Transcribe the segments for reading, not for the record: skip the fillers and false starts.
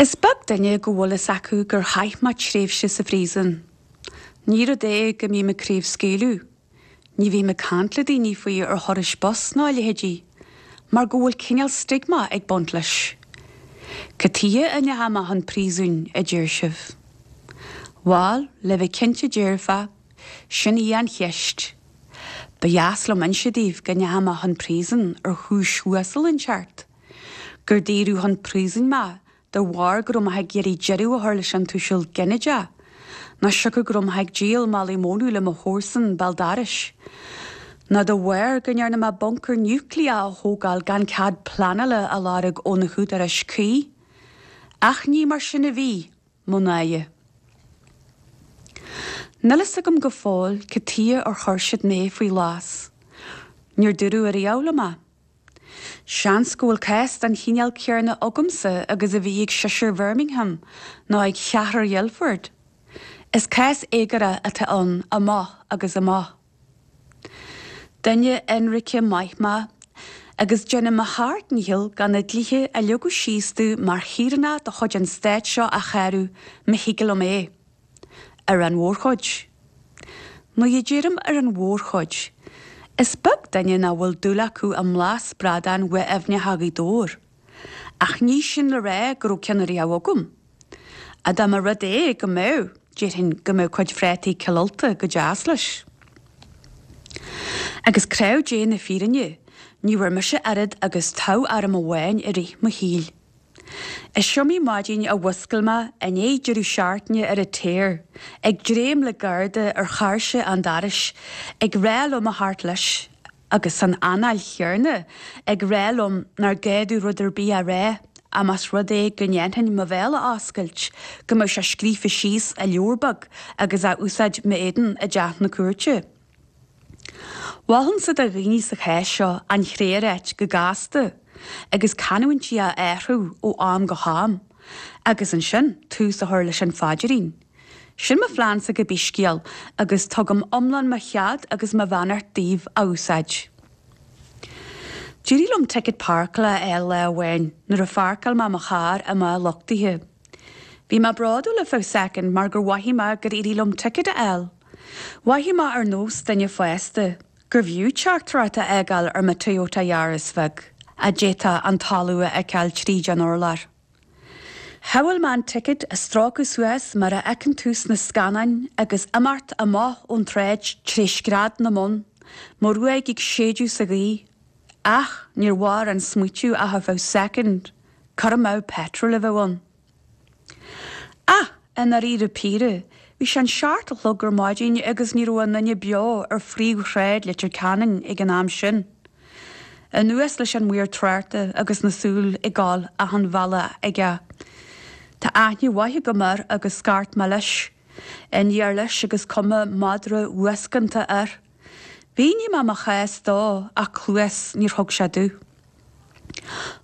Is beag duine go bhfuil fhios acu gur chaith mé tréimhse sa phríosún. Ní rud é go mbím ag craobhscaoileadh, ní bhím ag caint le daoine faoi ar thurais bus ná a leithéidí, mar go bhfuil cineál stigma ag baint leis. Cad tuighe a ndeachaigh mé chun príosúin, a deir sibh? Bhal, le bheith cinnte dearfa, sin í an cheist. Ba dheas liom inse daoibh go ndeachaigh mé chun príosúin ar chúis uasal inteacht. gur daoradh chun príosúin mé de bharr go raibh mé ag iarraidh deireadh a chur leis an tuiseal ginideach, nó siocair go raibh mé ag díol málaí mónadh le mo chomharsan béal dorais, nó de bharr go ndearna mé buncar núicléach a thógáil gan cead pleanála a lorg ó na húdaráis cuí. Ach ní mar sin a bhí, mo náire. Níl fhios agam go fóill cad tuighe ar chuir siad mé faoi ghlas. Níor dúradh ariamh liom é. Seans go bhfuil cás den chineál céarna agamsa agus a bhí ag seisear Bhirmingham nó ag cheathrar Ghuildford. Is cás éagóra atá ann amach agus amach. Duine ionraice maith mé agus déanaim mo sheacht ndícheall gan na dlíthe a leagadh síos domh mar shaoránach de chuid an stáit seo a shárú má thig liom é. Ar an mhórchuid. Nuair a deirim ar an mhórchuid, is beag duine nach bhfuil dúil acu i mblas bradáin mhaith aibhneacha Ghaoth Dobhair. Ach ní sin le rá go raibh ceann ariamh agam. Ach dá mba rud é go mbeadh, déarfainn go mbeadh cuid phrátaí Chill Ulta go deas leis. Agus craobh Dé na fírinne, ní bhfuair mise oiread agus toghairm amháin i rith mo shaoil. Is iomaí maidin a mhúscail mé i ndiaidh deireadh seachtaine ar an tear, ag dréim le garda ar cháirse an dorais ag rá liom a theacht leis agus san anáil chéarna ag rá liom nár ghá domh rud ar bith a rá ach más rud é go ndéanfainn mo bhéal a oscailt go mbeadh sé scríofa síos i leabhar beag agus á úsáid m'éadan i dteach na cúirte. Mholfainnse do dhaoine sa chás seo an chré a ráit go gasta agus canúintí a athrú ó am go ham agus ansin tús a chur leis an phaidrín. Sin mo phleansa cibé scéal agus tugaim iomlán mo chead agus mo bheannacht daoibh á úsáid. D'éirigh liom ticket páirceála a fháil lá amháin nuair a pháirceáil mé mo charr i mbá luchtaithe. Bhí mé bródúil ar feadh soicind mar gur mhothaigh mé gur éirigh liom ticket a fháil. Mhothaigh mé ar nós duine fásta, gurbh fhiú teachtaireacht a fhágáil ar mo Toyota Yaris bheag, a d'fhéadfadh an talamh a fheiceáil tríd an urlár. Shamhail mé an ticket a stróiceadh suas mar a fheiceann tú sna scannáin agus imeacht amach ón tsráid tré scread na mbonn, mo ghruaig ag séideadh sa ghaoth. Ach níor mhair an smaoitiú ach ar feadh soicind, cur amú peitril a bheadh ann. Ach, i ndáiríre píre, bhí sé an seacht a chlog ar maidin agus ní raibh aon duine beo ar phríomhshráid Leitir Ceanainn ag an am sin. Anuas leis an maor tráchta agus na súil ag gabháil achan bhealach aige. Tá aithne mhaith agam air agus scairt mé leis. Aniar leis agus cuma madra uascánta air. Mhínigh mé mo chás dó ach cluas níor thug sé domh.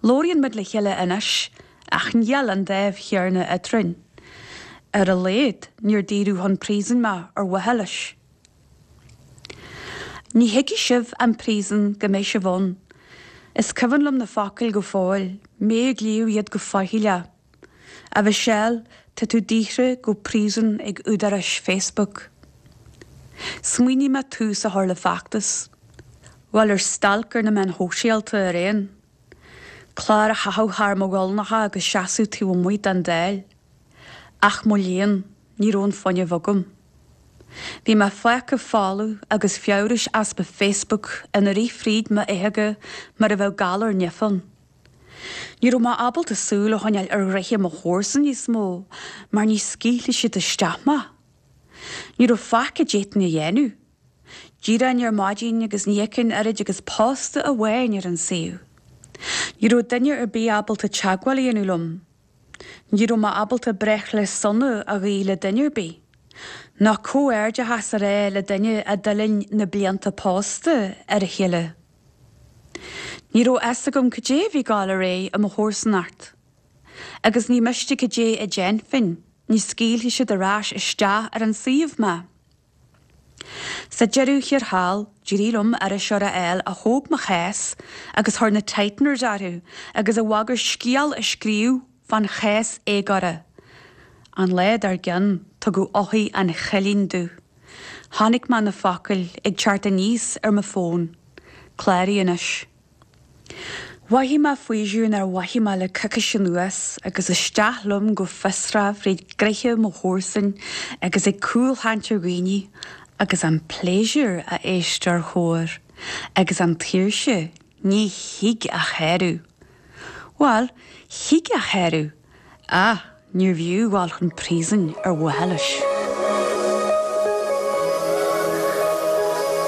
Labhraíonn muid le chéile anois ach níl an dáimh chéarna eadrainn. Ar a laghad níor daoradh chun príosúin mé ar mhaithe leis. Ní thuigfidh sibh an príosún go mbeidh sibh ann. Is cuimhin liom na focail go fóill, mé ag léamh iad go faichilleach. A Mhichelle, tá tú daortha go príosún ag údaráis Facebook. Smaoinigh mé tús a chur le feachtas. Bhuel, ar stailc ar na meáin shóisialta ar aon. Clár a chaitheamh thar mo ghuailneacha agus seasamh taobh amuigh den Dáil. Ach mo léan, ní raibh an fuinneamh agam. Bhí mé fágtha folamh agus feabhrais easpa Facebook ina rith fríd m'fhéitheoga mar a bheadh galar nimh ann. Ní raibh mé ábalta súil a choinneáil ar ghnoithe mo chomharsan níos mó mar ní scaoilfeadh siad isteach mé. Ní raibh faic a d'fhéadfainn a dhéanamh. D'éireoinn ar maidin agus ní fheicfinn oiread agus posta amháin ar an suíomh. Ní raibh duine ar bith ábalta teagmháil a dhéanamh liom. Ní raibh mé ábalta breithlá sona a ghuí le duine ar bith, ná comhghairdeachas a rá le duine a d'fhuilaing na blianta pósta ar a chéile. Ní raibh fhios agam cad é a bhí ag dul ar aghaidh i mo chomharsanacht. Agus ní miste cad é a déanfainn, ní scaoilfeadh siad ar ais isteach ar an suíomh mé. Sa deireadh thiar thall, d'éirigh liom iriseoir a fháil a thóg mo chás agus chuir na tighteners orthu agus a bhagair scéal a scríobh. fán chás éagóra. An lá dár gcionn tugadh eochair an chillín domh. Chonaic mé na focail ag teacht aníos ar mo fón. Cláraigh anois. Mhothaigh mé faoiseamh nár mhothaigh mé le coicís anuas agus isteach liom go fiosrach fríd gnoithe mo chomharsan agus ag cúlchaint ar dhaoine agus an pléisiúr a éisteoir chóir agus an tsaoirse ní thig a shárú. Bhuel, thig a shárú ach níorbh fhiú dhul chun príosúin ar mhaithe leis.